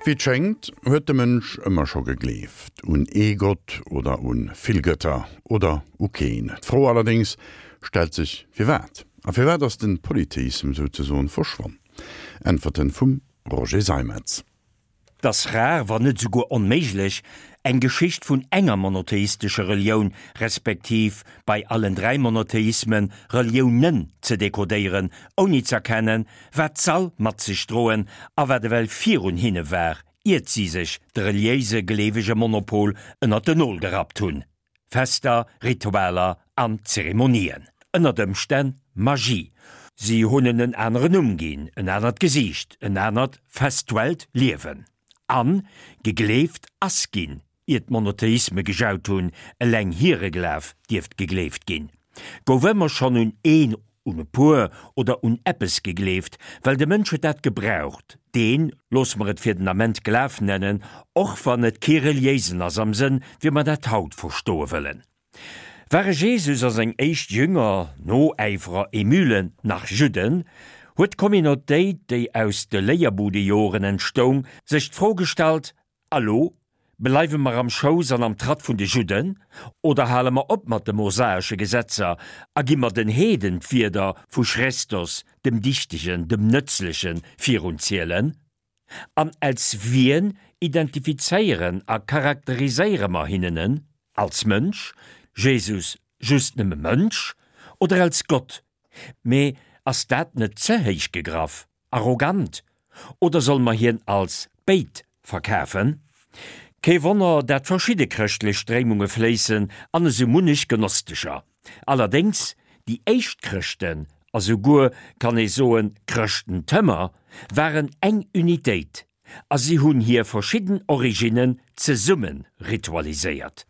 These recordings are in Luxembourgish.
Wéi et schéngt, huet de Mënsch ëmmer scho gegleeft, un ee Gott oder un vill Gëtter oder u keen. D'Fro allerdéngs stellt sech, firwat? A firwat ass den Polytheism souzesoen verschwonn? Äntwerten vum Roger Seimetz. 't ass rar, wann net esouguer onméiglech, eng Geschicht vun enger monotheistescher Relioun, respektiv bei allen 3 Monotheismen, Reliounen ze dekodéieren, ouni z'erkennen, wat s'all mat sech droen a wat ewell virun hinne war, iert si sech de reliéise gleewege Monopol ënnert den Nol gerappt hunn. Fester, Ritualer an Zeremonien. Ënnert Ëmstänn Magie. Si hunn en en aneren Numm ginn, en anert Gesiicht, en anert festuellt Liewen. An gegleeft ass ginn, ier d'Monotheisme gejaut hunn, eleng hire Glaf dierft gegleeft ginn. Gouf ëmmer schonn un een un e puer oder un eppes gegleeft, well de Mënsch huet dat gebraucht, deen, loosse mer et fir den Ament Glaf nennen, och wann et kee reliéisen ass am Sënn, wéi mer dat haut verstoe wëllen. Ware Jesus a seng éischt Jünger, Noäiferer, Emülen, nach Judden, huet d'Communautéit, déi aus de Léierbudejoren entstoung, sech d'Fro gestallt, A lo? Bleiwe mer am Schouss an am Tratt vun de Judden, oder hale mer op mat de mosaesche Gesetzer a gi mer den Heeden d'Wierder vu Chrestos, dem Dichtegen, dem Nëtzlechen, virunzielen? An als wien identifizéieren a charakteriséiere mer hinnen en? Als Mënsch, Jesus just nëmme Mënsch, oder als Gott? Mee ass dat net ze héich gegraff? Arrogant? Oder solle mer hien als béid verkafen? Kee Wonner, dat verschidde chrëschtlech Stréimunge fléissen an esou munnech Gnostecher. Allerdéngs, déi éischt Chrëschten, a souguer, kann ee soen, Chrëschtentëmer, waren eng Unitéit a si hunn hir verschidden Originnen zesumme ritualiséiert.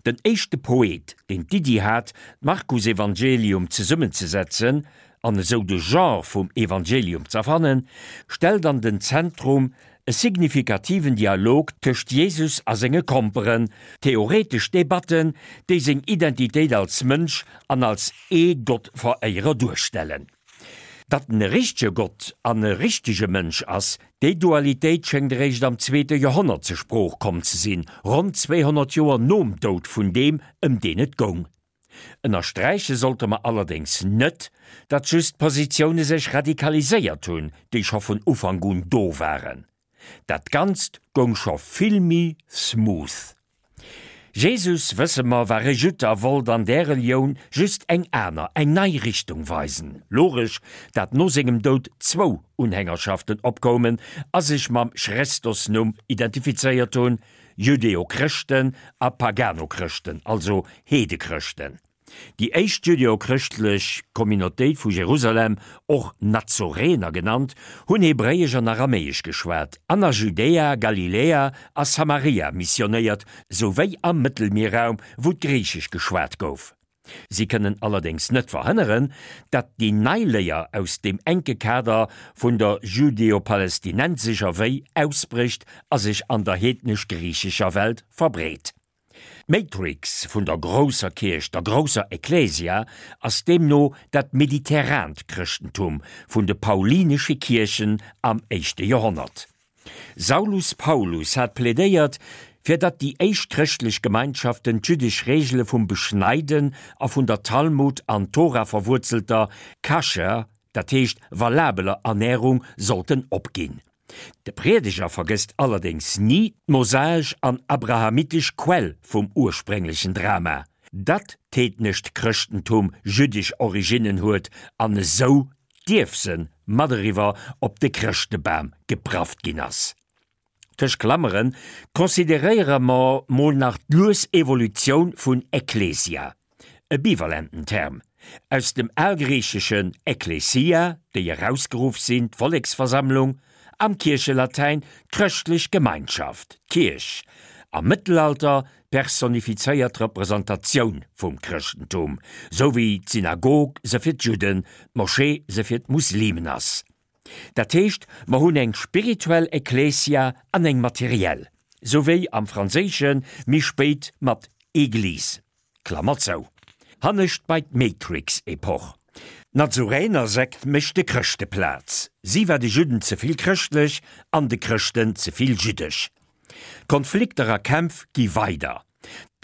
Den éischte Poet, deen d'Iddi hat, d'Markusevangelium zesummenzesetzen an esou de Genre vum Evangelium z'erfannen, stellt an den Zentrum e signifikativen Dialog tëscht Jesus a senge Komperen, theoretesch Debatten, déi seng Identitéit als Mënsch an als ee Gottveréierer duerstellen. Datt en e richtege Gott an e richtege Mënsch ass, déi Dualitéit schéngt eréischt am zweete Joerhonnert zur Sprooch komm ze sinn, ronn 200 Joer nom Doud vun deem, ëm deen et goung. Ënnersträiche sollte mer allerdéngs net, datt just d'Positioune sech radikaliséiert hunn, déi scho vun Ufank un do waren. Dat Ganzt goung scho vill méi smooth. Jesus, wësse mer, war e Judd a wollt an där Relioun just eng aner, eng nei Richtung weisen. Logesch, dat no sengem Doud zwou Unhängerschaften opkoumen a sech mam Chrestos-Numm identifizéiert hunn, Judeo-Chrëschten a Pagano-Chrëschten, also Heedechrëschten. Déi éischt judeo-chrëschtlech Communautéit vu Jerusalem, och Nazorener genannt, hunn Hebréiesch an Aramäesch geschwat an a Judäa, Galiläa a Samaria missionéiert, souwéi am Mëttelmierraum, wou d'Griichesch geschwat gouf. Si kënnen allerdéngs net verhënneren, datt déi nei Léier aus deem enke Kader vun der judeo-palestinensescher Wéi ausbrécht a sech an der heednesch-griichescher Welt verbreet. D'Matrix vun der grousser Kierch, der grousser Ecclesia, ass deemno dat mediterrant Chrëschtentum vun de paulinesche Kierchen am éischte Joerhonnert. Saulus Paulus hat plädéiert, fir datt déi éischt chrëschtlech Gemeinschaften d'jüddesch Reegele vum Beschneiden a vun der Talmud an Tora verwuerzelter kascher, dat heescht valabeler Ernärung sollten opginn. De Priedeger vergësst allerdéngs ni d'mosaesch an abrahamitesch Quell vum ursprénglechen Drama, datt d'heednescht Chrëschtentum jüddesch Originnen huet an esou d'Ierfse mat eriwwer op de Chrëschtebam geprafft ginn ass. Tëscht Klammeren consideréiere mer mol nach d'lues Evolutioun vun Ekklesia, e bivalenten Term, aus dem algriicheschen ekklesia, déi erausgeruff sinn, d'Volleksversammlung, am Kierchelatäin d'chrëschtlech Gemeinschaft, d'Kierch, am Mëttelalter d'personifizéiert Representatioun vum Chrëschtentum, sou wéi d'Synagog se fir d'Judden, d'Moschee se fir d'Muslimen ass. Dat heescht, mer hunn eng spirituell Ekklesia an eng materiell, sou wéi am Franséische méi spéit mat Église. Klammer zou. Hannescht bei d'Matrix-Epoch. D'Nazuränersekt mécht de Chrëschte Plaz. Si war de Judden ze vill chrëschtlech an de Chrëschten ze vill jüddesch. D'Konflikter a Kämpf gi weider.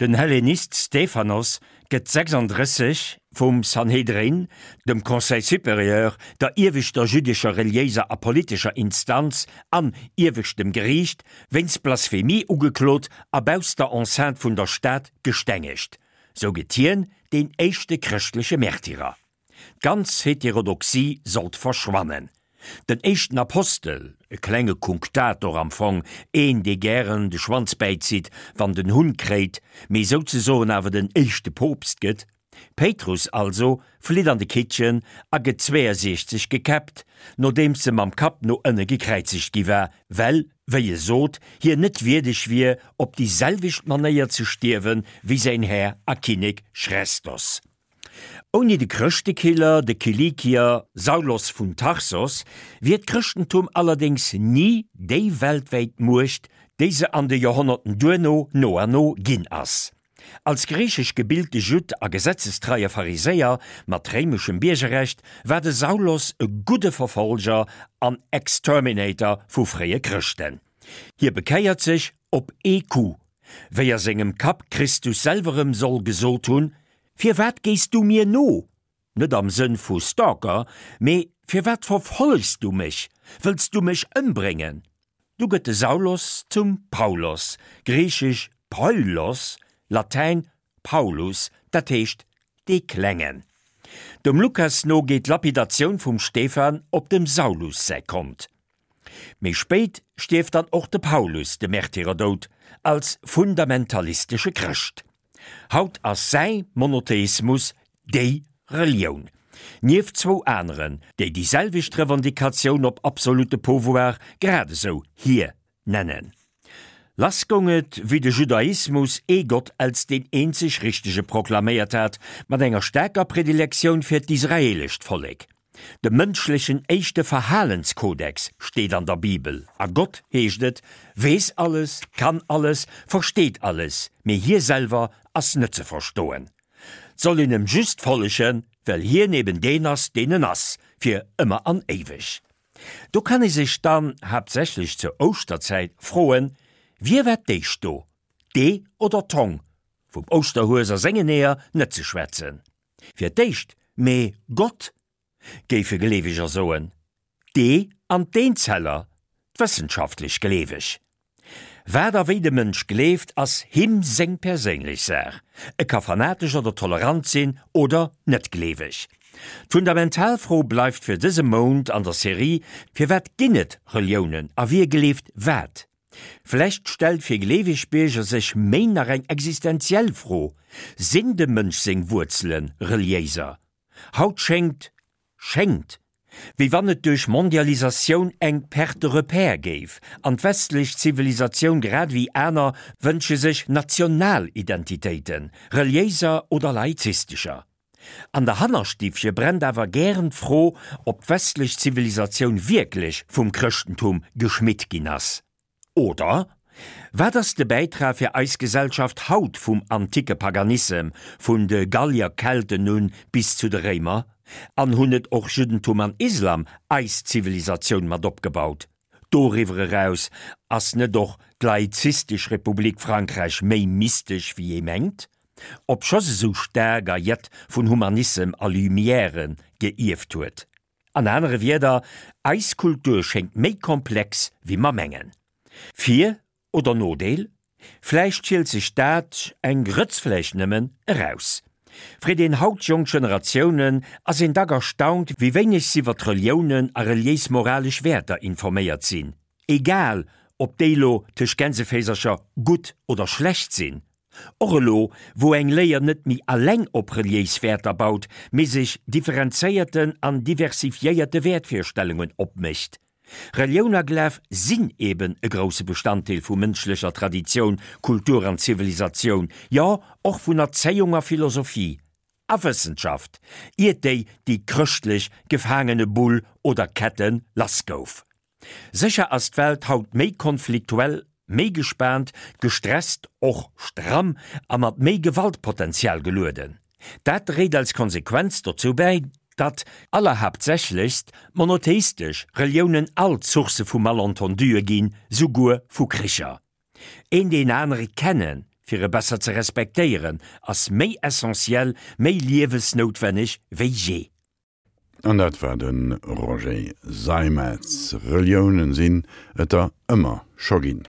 Den Hellenist Stephanos gëtt 36 vum Sanhedrin, dem Conseil supérieur, der ieweschter jüddescher reliéiser a politescher Instanz an ieweschtem Geriicht, wéinst Blasphemie ugeklot a bausst der Enceinte vun der Stad gestengegt. Sou gëtt hien deen éischte chrëschtleche Märtyrer. D'ganz Heterodoxie sollt verschwannen. Den éischten Apostel, e klenge Kunktator am Fong, een dee gären de Schwanz bäizitt wann den Hunn kréit, mee souzesoen awer den éischte Poopst gëtt, Péitrus also, flitt an de Kittchen a gëtt 62 gekäppt, nodeems e mam Kapp no ënne gekräizegt gi war, well, wéi e sot, hien net wierdeg wier, op déi selwecht Manéier ze stierwe wéi säin Här a Kinnek Chrestos. Ouni de Chrëschtekiller, de Kilikier Saulos vun Tarsos, wier d'Chrëschtentum allerdéngs ni déi weltwäit Muecht, déi se an de Joerhonnerten duerno no an no ginn ass. Als griichesch gebilte Judd a gesetzestreie Pharisäer mat réimeschem Biergerrecht war de Saulos e gudde Verfolger an Exterminator vu fréie Chrëschten. Hie bekéiert sech op ee Coup, wéi a sengem Kapp Christus selwer em soll gesot hunn, Firwat gees du mir no? Net am Sënn vu Stalker, mee Firwat verfollegs du mech? Wëlls du mech ëmbréngen? Du gëtt de Saulos zum Paulos, griichesch Paulos, latäin Paulus, dat heescht dee Klengen. Dem Lukas no geet d'Lapidatioun vum Stephan op dem Saulus säi Kont. Méi spéit stierft dann och de Paulus de Märtyrerdoud als fundamentalistesche Chrëscht. Haut ass säi Monotheismus déi Relioun, nieft zwou aneren, déi déi selwecht Revendicatioun op absolute Pouvoir grad esou hir nennen. Lass goung et, wéi de Judaismus ee Gott als deen eenzeg richtege proklaméiert hat, mat enger staarker Predilektioun fir d'israelescht Vollek. De mënschlechen éischte Verhalenskodex steet an der Bibel, a Gott, heescht et, weess alles, kann alles, versteet alles, mee hie selwer ass net ze verstoen. 't soll een em just follegen, well hien eben deen ass, deen en ass, fir ëmmer an éiweg. Do kann ee sech dann, haaptsächlech zur Ouschterzäit, froen, Wie war d'éischt do, d'Ee oder d'Hong? Vum Ouschterhues a sengen Eeër net ze schwätzen. Fir d'éischt, mee Gott, géife Gleeweger soen, d'Ee an d'Eenzeller, d'wëssenschaftlech Gleeweg. Wat a wéi de Mënsch gleeft, ass him seng perséinlech Saach. E ka fanatesch oder tolerant sinn oder net gleeweg. D'fundamental Fro bleift fir dëse Mount an der Serie, Firwat ginn et Reliounen a wie gleeft wat? Vläicht stellt fir gleeweg Bierger sech méi nach eng existenziell Fro, Sinn dem Mënsch seng Wuerzele reliéiser? Haut schéngt, schéngt, wéi wann et duerch Mondialisatioun eng Perte de repères géif, an d'westlech Zivilisatioun grad ewéi aner wënsche sech national Identitéiten, reliéiser oder laizistescher. An der Hannerstiffche brennt awer gären d'Fro, ob d'westlech Zivilisatioun wierklech vum Chrëschtentum geschmitt ginn ass. Oder, Wat ass de Bäitrag fir eis Gesellschaft haut vum anticke Paganissem, vun de Gallier, Kelten un bis zu de Réimer? An hunn net och Juddentum an Islam eis Zivilisatioun mat opgebaut? Doriwwer eraus, ass net och d'laizistesch Republik Frankräich méi mystesch wéi ee mengt? Obscho se sou staark a jett vun Humanissem a Lumièren geierft huet. An anere Wierder, eis Kultur schéngt méi komplex wéi mer mengen. Vir oder Nodeel? Vläicht schielt sech dat, eng Grëtz vläicht nëmmen, eraus. Freet een haut jonk Generatiounen, ass een dack erstaunt, wéi wéineg s'iwwer d'Reliounen a reliéis-moralesch Wäerter informéiert sinn, egal ob déi lo tëscht Gänseféisercher gutt oder schlecht sinn. Och elo, wou eng Léier net méi alleng op reliéis Wäerter baut, mee sech differenzéierten an diversifiéierte Wäertvirstellungen opmécht. Relioun a Glaf sinn eben e grousse Bestanddeel vu mënschlecher Traditioun, Kultur an Zivilisatioun, jo och vun Erzéiung a Philosophie a Wëssenschaft, iert déi déi chrëschtlech Gefaangenebull oder Kette lass gouf. Sécher ass d'Welt haut méi konfliktuell, méi gespaant, gestresst, och stramm a mat méi Gewaltpotenzial gelueden. Dat dréit als Konsequenz dozou bäi, Datt, allerhaaptsächlechst, monotheistesch Reliounen alt Sourcë vu Malentenduë ginn, souguer vu Kricher. Een deen anere kennen, fir e besser ze respektéieren, ass méi essentiell, méi liewesnoutwenneg wéi jee. An dat war de Roger Seimetz. Reliounen sinn et der ëmmer scho ginn.